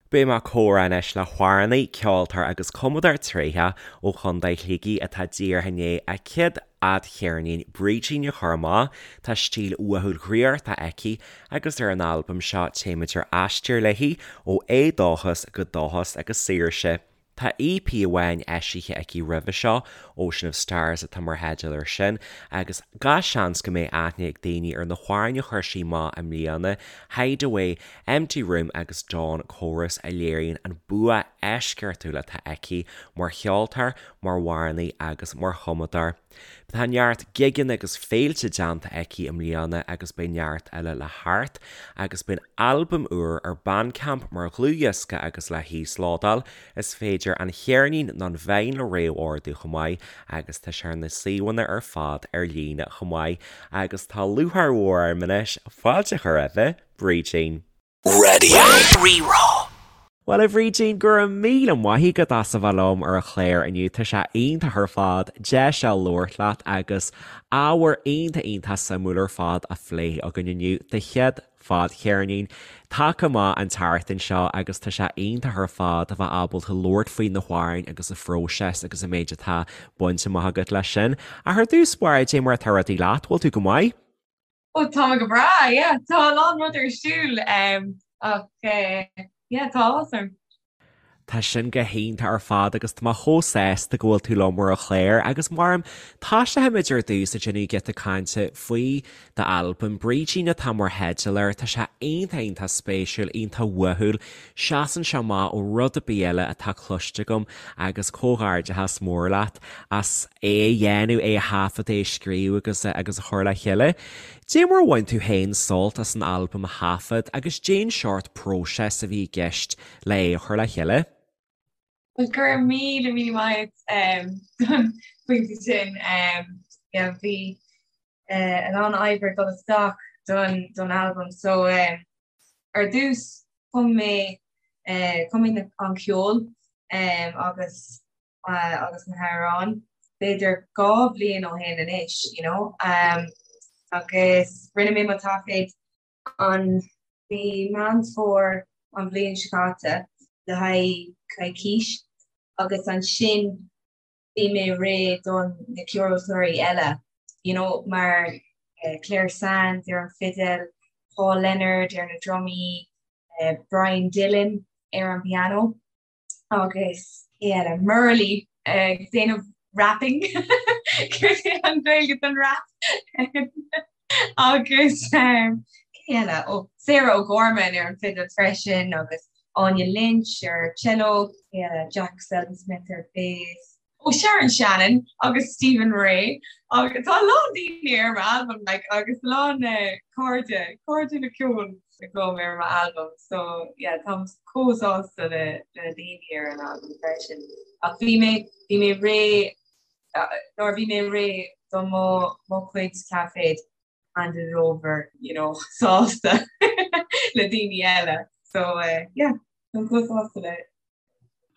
Beidh mé ag comhrá anois le hamhránaí, ceoltóir agus cumadóir tréitheach ó Chontae Shligigh atá díreach i ndiaidh a céad fhadcheirnín Brídín a chur amach. Tá stíl uathúil dhraíochta aici agus ar an albam seo téimid ar aistear léi ó éadóchas go dóchas agus saoirse. Tá EP amháin eisithe aici roimhe seo, Ocean of Stars atá mar theideal air sin, agus gach seans go mbeidh aithne ag daoine ar na hamhráin a chuir sí amach i mbliana, Hideaway, Empty Room agus Dawn Chorus a léiríonn an bua eisceachtúil atá aici mar cheoltóir, mar amhránaí agus mar chumadóir. Tá neart gigeanna agus féilte déanta aici i mbliana agus beidh neart eile le theacht agus beidh an albam úr ar Bandcamp mar dhlúthdhiosca agus le híoslódáil. Is féidir an cheirnín nó an vinyl a réamhordú chomh maith agus tá sé ar na suíomhanna ar fad ar líne chomh maith agus tá lúcháir mhór orm anois fáilte a chur roimhe, Brídín. Raidió Rí-Rá. Bhuel, a Bhrídín, go raibh míle maith agat as a bheith liom ar an chlár inniu. Tá sé iontach ar fad deis a labhairt leat agus ábhar iontach iontach suimiúil ar fad á phlé againn inniu. Do chéad fadcheirnín tagtha amach an tseachtain seo agus tá sé iontach ar fad a bheith ábalta labhairt faoi na hamhráin agus an phróiseas agus an méid atá bainte amach agat leis sin. Ach ar dtús báire, cad é mar atá rudaí leat, bhfuil tú go maith? Ó tá mé go breá, yeah. Tá a lán rud ar siúl ach yeah, tá áthas orm. Tá sin go hiontach ar fad agus tá mé chomh sásta go bhfuil tú liom ar an chlár agus mar a tosóimid ar dtús ag déanamh giota cainte faoi d'albam, Brídín atá mar theideal air, tá sé iontach iontach spéisiúil, iontach uathúil, seasann sé amach ó rud ar bith eile atá cloiste agam agus comhghairdeachas mór leat as é a dhéanamh, é a thaifead, é a scríobh agus agus a chur le chéile. Dé mar a bhain tú féin sult as an albam a thaifead agus cén seort próiseas a bhí i gceist le é a chur le chéile? Bhuel, go raibh míle míle maith agat don phointe sin. Yeah, bhí a lán oibre ag dul isteach don don albam so ar dtús chum mé chum mé an ceol agus agus na hamhráin, b'fhéidir 2 bhliain ó shin anois, you know, agus rinne mé mo taifead an mhí Meán Fómhair an bhliain seo caite le haghaidh coicís agus ansin bhí mé réidh don na ceoltóirí eile, you know, mar Clare Sands ar an fidil, Paul Leonard ar na drumaí, Brian Dillon ar an piano. agus cé eile? Murley ag déanamh rapping céard é an Ghaeilge don rap agus cé eile? Ó Sarah O'Gorman ar an fidil freisin agus Áine Lynch ar cello, cé eile? Jack Seldon Smith ar bass. Ó Sharon Shannon agus Stephen Ray agus tá a lán daoine ar m'albam like agus a lán cairde, cairde le ceol agam ar m'albam so yeah táim chomh sásta le le daoine ar an albam freisin. Ach bhí mé bhí mé réidh nuair a bhí mé réidh do mo mo chuid taifead handed it over you know sásta le daoine eile so yeah táim chomh sásta le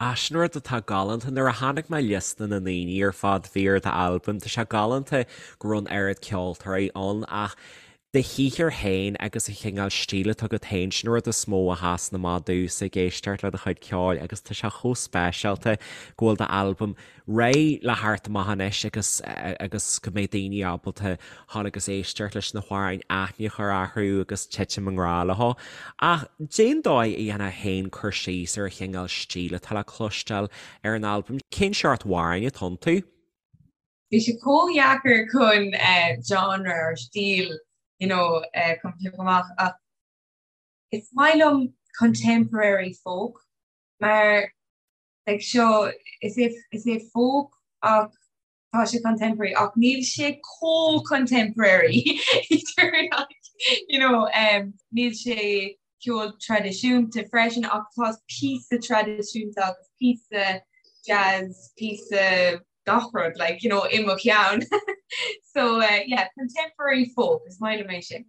Ah, sin rud atá galánta. Nuair a chonaic mé liosta na ndaoine ar fad a bhí ar d'albam, tá sé galánta go raibh an oiread ceoltóirí ann ach do shaothar féin agus an chineál stíl atá agat féin, sin an rud is mó a sheasann amach domhsa ag éisteacht le do chuid ceoil agus tá sé chomh speisialta go bhfuil d'albam réidh le theacht amach anois agus agus go mbeidh daoine ábalta dhul agus éisteacht leis na hamhráin, aithne a chur orthu agus titim i ngrá leo. Ach cén dóigh a dhéanfá féin cur síos ar an chineál stíl atá le cloisteáil ar an albam. Cén seort amhráin atá iontu? Bhí sé chomh dheacair chun genre or stíl you know chun piocadh amach ach is maith liom contemporary folk mar like seo is é is é folk ach tá sé contemporary ach níl sé chomh contemporary you know um, níl sé ceol traidisiúnta freisin ach tá píosa traidisiúnta agus píosa jazz píosa gach rud like you know i mo cheann so uh, yeah contemporary folk is maith liom é sin.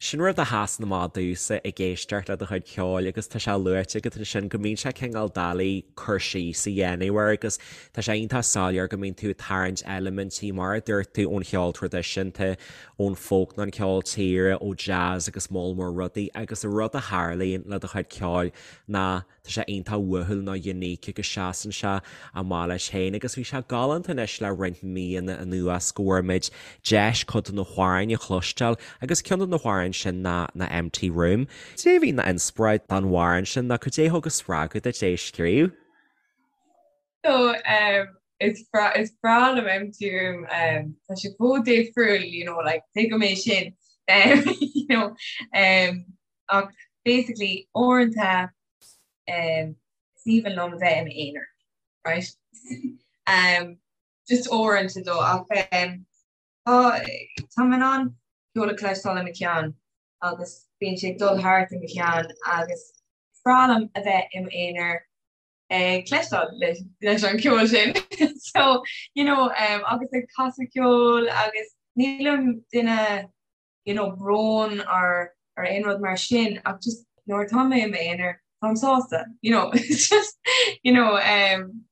Sin rud a sheasann amach domhsa ag éisteacht le do chuid ceoil agus tá sé luaite agat ansin go mbíonn sé cineál doiligh cur síos a dhéanamh air agus tá sé iontach soiléir go mbíonn tú ag tarraingt eilimintí mar a dúirt tú ón cheol traidisiúnta, ón folk nó an ceol tíre, ó jazz agus moll mór rudaí agus an rud a tharlaíonn le do chuid ceoil ná Tá sé iontach uathúil nó unique agus seasann sé amach leis féin agus bhí sé galánta anois le roinnt míonna anuas go bhfuair muid deis cuid de na hamhráin a chloisteáil agus ceann de na hamhráin sin ná ná Empty Room. Cad é a bhí ina inspioráid don amhrán sin nó cad é a thug an spreagadh duit é a scríobh? So um, is breá is breá liom Empty Room um, tá sé chomh difriúil you know, like, tuigim é sin um, you know, um, Ach basically uaireanta um, is aoibhinn liom a bheith i m'aonar, right? um, just uaireanta though ach um, tá tá mé in ann ceol a chloisteáil i mo cheann agus bíonn sé ag dul thart i mo cheann agus is breá liom a bheith i m'aonar ag cloisteáil leis, leis an ceol sin. so, you know, um, agus ag casadh ceoil agus nílim duine you know, brón or or aon rud mar sin ach just nuair atá mé i m'aonar táim sásta, you know, it's just, you know, um,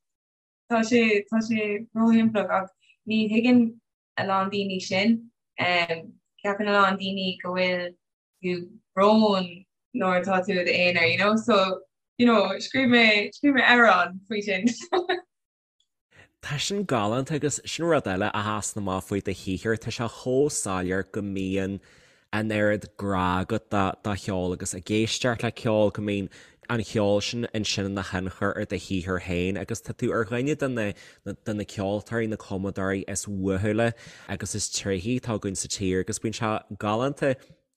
tá sé tá sé róshimplí ach ní thuigeann a lán daoine sin. Um, ceapann a lán daoine go bhfuil tú brón nuair atá tú i d'aonar, you know, so, you know, scríobh mé scríobh mé amhrán faoi sin. Tá sin galánta agus sin rud eile a sheasann amach faoi do shaothar, tá sé chomh soiléir go mbíonn an oiread grá agat do cheol agus ag éisteacht le ceol, go mbíonn an cheol sin ansin ina thionchar ar do shaothar féin agus tá tú ar dhuine de na de na ceoltóirí, na cumadóirí is uathúla agus is tréithí atá againn sa tír agus bíonn sé galánta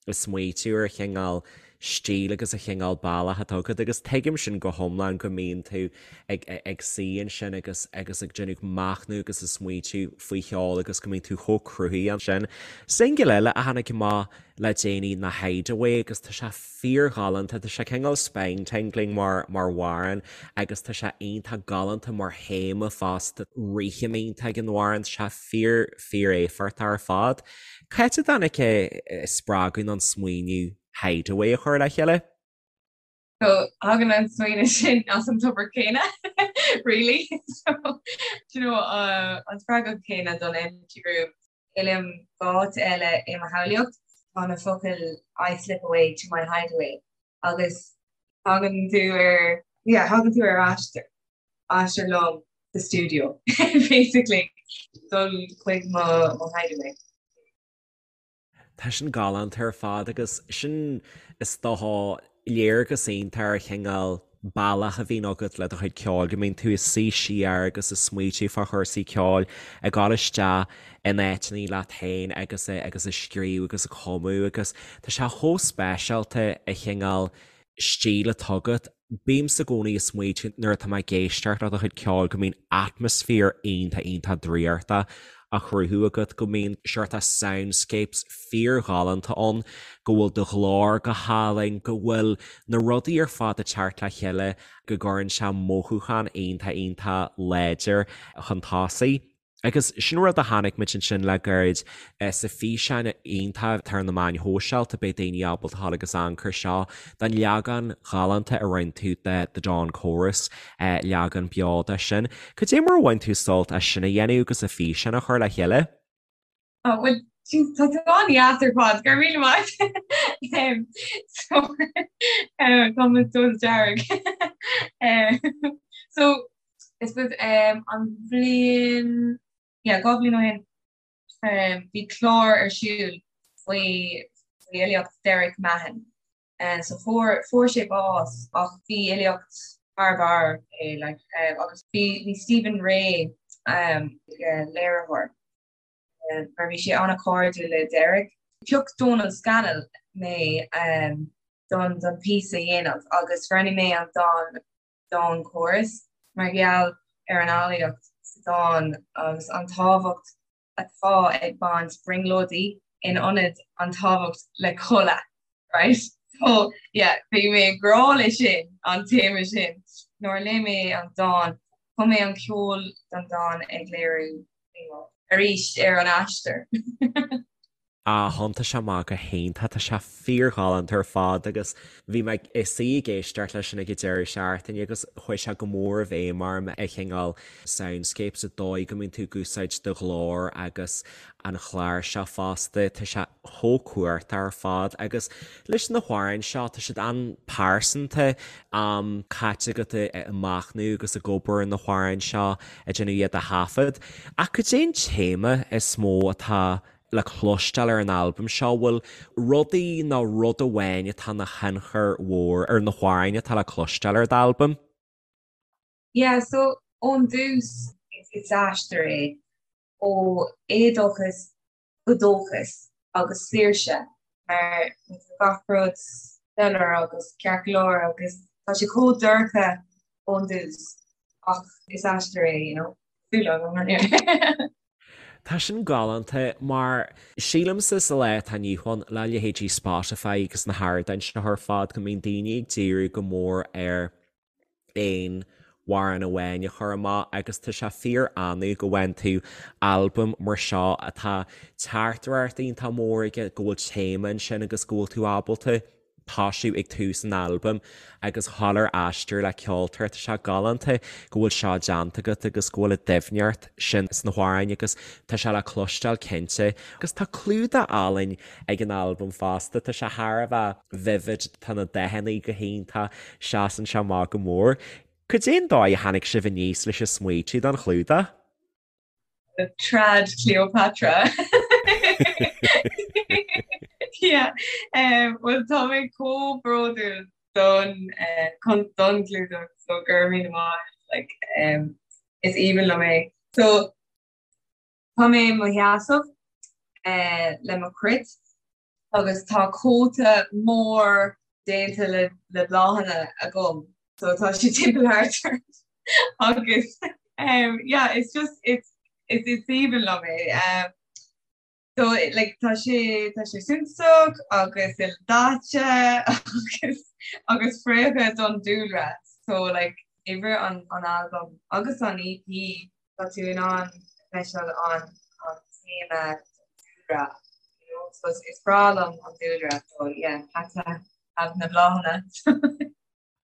ag smaoitiú ar an chineál stíl agus an chineál bealach atá agat agus tuigim sin go hiomlán go mbíonn tú ag ag suí ansin agus agus ag déanamh machnamh agus ag smaoitiú faoi cheol agus go mbíonn tú chomh cruthaithe ansin. Singil eile a tháinig amach le déanaí ná Hideaway agus tá sé fíorghalánta, tá sé cineál spine tingling mar mar amhrán agus tá sé iontach galánta mar théama fosta, rithim iontach ag an amhrán, tá sé fíor fíor-éifeachtach ar fad. Cá háit a dtáinig an spreagadh nó an smaoineamh Hideaway a chur le chéile? So tagann an smaoineamh sin as an tobar céanna really so do you know uh, an spreagadh céanna don empty room. Fhillim áit eile i mo shamhlaíocht tá na focail I slip away to my hideaway agus tagann tú ar yeah, tagann tú ar aistear aistear liom sa stiúideo basically dul chuig mo mo hideaway. Tá sin galánta ar fad agus sin is dócha léargas iontach ar chineál bealach a bhíonn agat le do chuid ceoil, go mbíonn tú ag suí siar agus ag smaoitiú fá chúrsaí ceoil, ag dul isteach in áiteanna leat féin agus agus ag scríobh agus ag cumadh agus tá sé chomh speisialta an chineál stíl atá agat. Bímse i gcónaí ag smaoitiú nuair atá mé ag éisteacht le do chuid ceoil go mbíonn atmaisféar iontach iontach draíochta á chruthú agat, go mbíonn seort soundscapes fíorghalánta ann, go bhfuil do ghlór go hálainn, go bhfuil na rudaí ar fad ag teacht le chéile go gcuireann sé mothúchán iontach iontach láidir chun tosaigh. Agus sin rud a chonaic muid ansin le gairid sa físeán iontach atá ar na meáin shóisialta, beidh daoine ábalta a ghabháil agus amharc air seo, den leagán ghalánta a rinne tú de The Dawn Chorus, leagán beo de sin. Cad é mar a bhain tú sult as sin a dhéanamh agus an físeán a chur le chéile? Oh, well, tá tú an-deas ar fad, go raibh míle maith. So, tá mé dul dearg. So, I suppose um, an bhliain yeah, 2 bhliain ó shin um, bhí clár ar siúl faoi faoi fhilíocht Derek Mahon. Uh, so fuair fuair sé bás ach bhí filíocht thar barr é like, um, agus bhí bhí Stephen Rea um, uh, léiritheoir uh, mar bhí sé an-chairdiúil le Derek. Phioc Donal Scannell mé um, don don píosa a dhéanamh agus roghnaigh mé an dán Dawn Chorus mar gheall ar an fhilíocht sa dán agus an tábhacht atá ag baint brionglóidí in ionad an tábhacht le codladh, right? So, yeah, bhí mé i ngrá le sin, an téama sin. Nuair a léigh mé an dán, chum mé an ceol don dán ag léiriú arís ar an aistear. Ah, thiontaigh sé amach go hiontach, tá sé fíorghalánta ar fad agus bhí mé ag suí ag éisteacht leis sin ag an deireadh seachtaine agus chuaigh sé go mór i bhfeidhm orm an cineál soundscape sa dóigh go mbíonn tú ag úsáid do ghlór agus an chláirseach fosta, tá sé chomh cumhachtach ar fad agus leis na hamhráin seo tá siad an-pearsanta, am caite agat ag machnamh agus ag obair ar na hamhráin seo, ag déanamh iad a thaifead. Ach cad é an téama is mó atá le cloisteáil ar an albam seo? Bhfuil rudaí nó rud amháin atá ina thionchar mhór ar na hamhráin atá le cloisteáil ar d'albam? Yeah, so ón dtús is aistear é ó éadóchas go dóchas agus saoirse mar tá gach rud soiléir agus ceart go leor agus tá sé chomh dorcha ón dtús ach is aistear é, you know. Súil agam anyway. Tá sin galánta mar sílimse sa lá atá inniu ann le leithéidí Spotify agus na hardáin seo ar fad go mbíonn daoine ag díriú go mór ar aon amhrán amháin a chur amach agus tá sé fíor annamh go bhfaigheann tú albam mar seo atá teachtaireacht iontach mór aige, go bhfuil téama ansin agus go bhfuil tú ábalta tosú ag tús an albaim agus dhul ar aistear le ceoltóir. Tá sé galánta go bhfuil seo déanta agat agus go bhfuil an doimhneacht sin sna hamhráin agus tá sé le cloisteáil cinnte. Agus tá clúdach álainn ag an albam fosta, tá sé thar a bheith vivid, tá na dathanna go hiontach, seasann sé amach go mór. Cad é an dóigh a tháinig sibh aníos leis an smaoitiú don chlúdach? Trad Cleopatra. Yeah. Um, well tá mé chomh bródúil don uh, don chlúdach so go raibh míle maith like, um, is aoibhinn liom é. So tá mé i mo sheasamh uh, le mo chruit agus tá cóta mór déanta le le bláthanna agam so tá sé timpeall thart agus um, yeah it's just it's it's it's aoibhinn liom é um, so like tá sé tá sé suntasach agus ildaite agus agus fraocha don dúlra so like uimhir an an album agus an EP tá tú in ann feiceáil an an téama dúlra you know so is breá liom an dúlra so yeah had to have na bláthanna.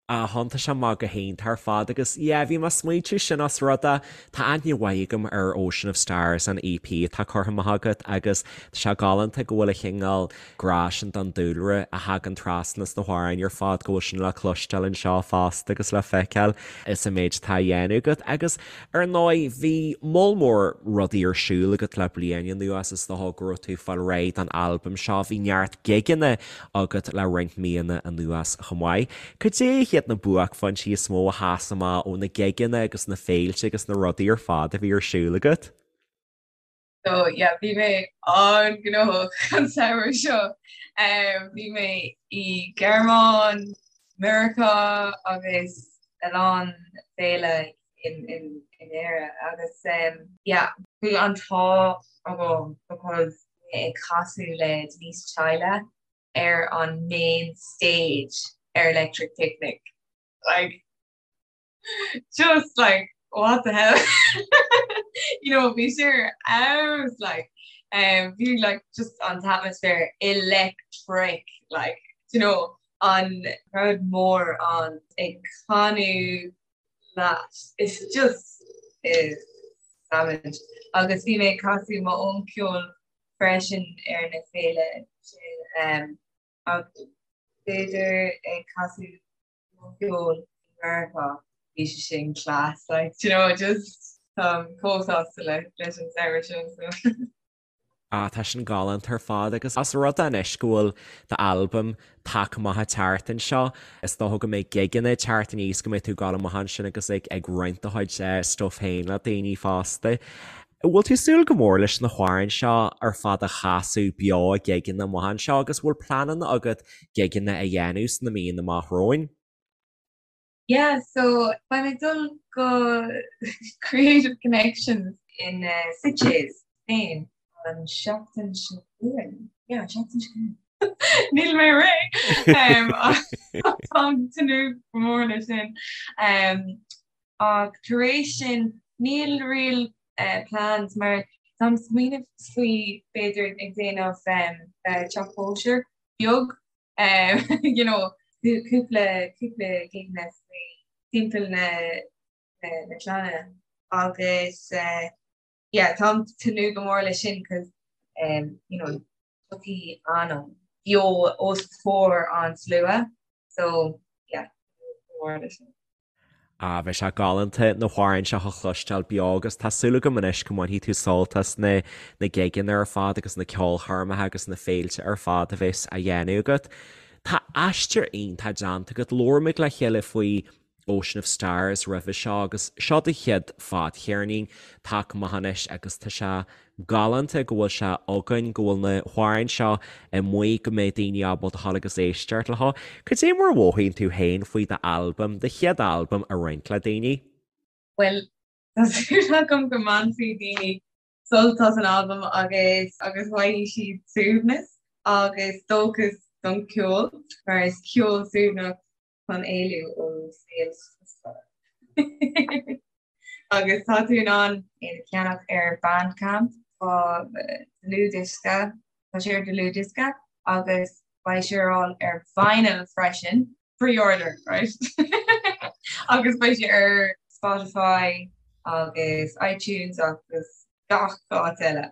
Ah thiontaigh sé amach go hiontach ar fad agus yeah bhí mé ag smaointiú sin os rud é tá aithne mhaith agam ar Ocean of Stars an EP atá curtha amach agat agus tá sé galánta go bhfuil an cineál grá sin don dúlra a thagann trasna sna hamhráin ar fad go bhfuil sin le cloisteáil anseo fosta agus le feiceáil is an méid atá á dhéanamh agat agus Ar ndóigh, bhí moll mór rudaí ar siúl agat le bliain anuas, is dócha go raibh tú ag fáil réidh don albam seo, bhí neart gigeanna agat le roinnt míonna anuas chomh maith. Cad é hiad na buaicphointí is mó a sheas amach ó na gigeanna agus na féilte agus na rudaí ar fad a bhí ar siúl agat? So yeah, bhí mé an-ghnóthach an samhradh seo. Um, bhí mé i Gearmáin, Meiriceá agus a lán féile in, in, in Éire agus um, yeah, bhí an t-ádh agam because mé ag casadh le Denise Chaila ar an main stage ar Electric Picnic. Like, just like what the hell you know bhí sé ar fheabhas like um, bhí like just an t-atmaisféar electric like you know an crowd mór an ag canadh leat it's just is savage agus bhí mé ag casadh m'own ceol freisin ar na féile sin um, agus b'fhéidir ag casadh ceol i Meiriceá, bhí sé sin class, like, do you know, just táim chomh sásta le leis an samhradh sin, so. Ah, tá sin galánta ar fad agus os rud é anois go bhfuil d'albam tagtha amach an tseachtain seo, is dócha go mbeidh gigeanna ag teacht aníos go mbeidh tú ag dul amach ansin agus ag ag roinnt do chuid eh, stuff féin le daoine fosta. Bhfuil tú ag súil go mór leis na hamhráin seo ar fad a chasadh beo ag gigeanna amach anseo agus bhfuil pleananna agat gigeanna a dhéanamh sna míonna amach romhainn? Yeah, so beidh mé ag dul go Creative Connections in Sitges, Spain an seachtain seo chugainn. Yeah, an seachtain seo chugainn. Níl mé réidh! Táim ag tnúth go mór leis sin. Ach tar éis sin níl real plans mar. Táim ag smaoineamh faoi b'fhéidir ag déanamh teach cóisir beag you know cúpla cúpla gigeanna faoi timpeall na na clainne agus yeah táim ag tnúth go mór leis sin cos you know tiocfaidh anam beo os comhair an slua so yeah go mór leis sin. Ah, bheadh sé galánta na hamhráin seo a chloisteáil beo agus tá súil agam anois go mbainfidh tú sult as na na gigeanna ar fad agus na ceolchoirmeacha agus na féilte ar fad a bheas á dhéanamh agat. Tá aistear iontach déanta agat. Labhair muid le chéile faoi Ocean of Stars roimhe seo agus seo do chéad fadcheirnín tagtha amach anois agus tá sé galánta go bhfuil sé againn, go bhfuil na hamhráin seo amuigh, go mbeidh daoine ábalta dhul agus éisteacht leo. Cad é mar a mhothaíonn tú féin faoi d'albam, do chéad albam a roinnt le daoine? Bhuel, tá súil agam go mbainfidh daoine sult as an albam agus agus faighidh siad suaimhneas agus dóchas don cheol, mar is ceol suaimhneach chun éalú ó saol strusmhar. Agus tá tú in ann é a cheannach ar Bandcamp, tá dlúthdhiosca, tá sé ar dlúthdhiosca agus beidh sé ar fáil ar vinyl freisin, pre-order, right? Agus beidh sé ar Spotify agus iTunes agus gach áit eile.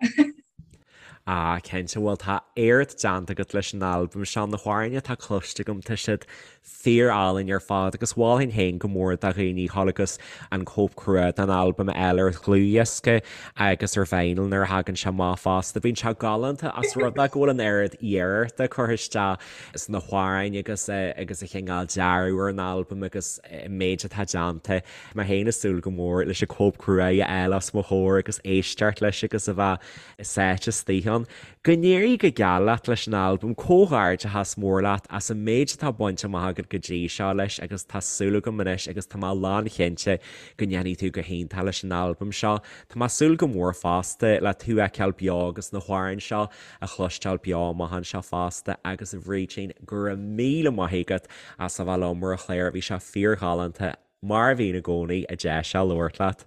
Ah, cinnte, bhuel tá éacht déanta agat leis an albam seo, na hamhráin atá cloiste agam, tá siad fíor-álainn ar fad agus mholfainn féin go mór do dhaoine dhul agus an cóip crua den albam a fháil ar dhlúthdhiosca agus ar vinyl nuair a thagann sé amach fosta. Bíonn sé galánta ós rud é go bhfuil an oiread iarrachta curtha isteach sna hamhráin agus agus an cineál dearadh ar an albam agus an méid atá déanta. Mé féin ag súil go mór leis an cóip crua a fháil os mo chomhair agus éisteacht leis agus a bheith sáite istigh ann. Go n-éirí go geal leat leis an albam, comhghairdeachas mór leat as an méid atá bainte amach agat go dtí seo leis agus tá súil agam anois agus tá mé lánchinnte go ndéanfaidh tú go hiontach leis an albam seo. Tá mé ag súil go mór fosta le tú a fheiceáil beo agus na hamhráin seo a chloisteáil beo amach anseo fosta agus a Bhrídín, go raibh míle maith agat as a bheith liom ar an chlár, bhí sé fíorghalánta, mar a bhíonn i gcónaí, an deis seo labhairt leat.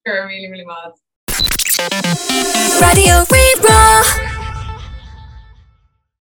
Go raibh míle míle maith. Raidió Rí-Rá.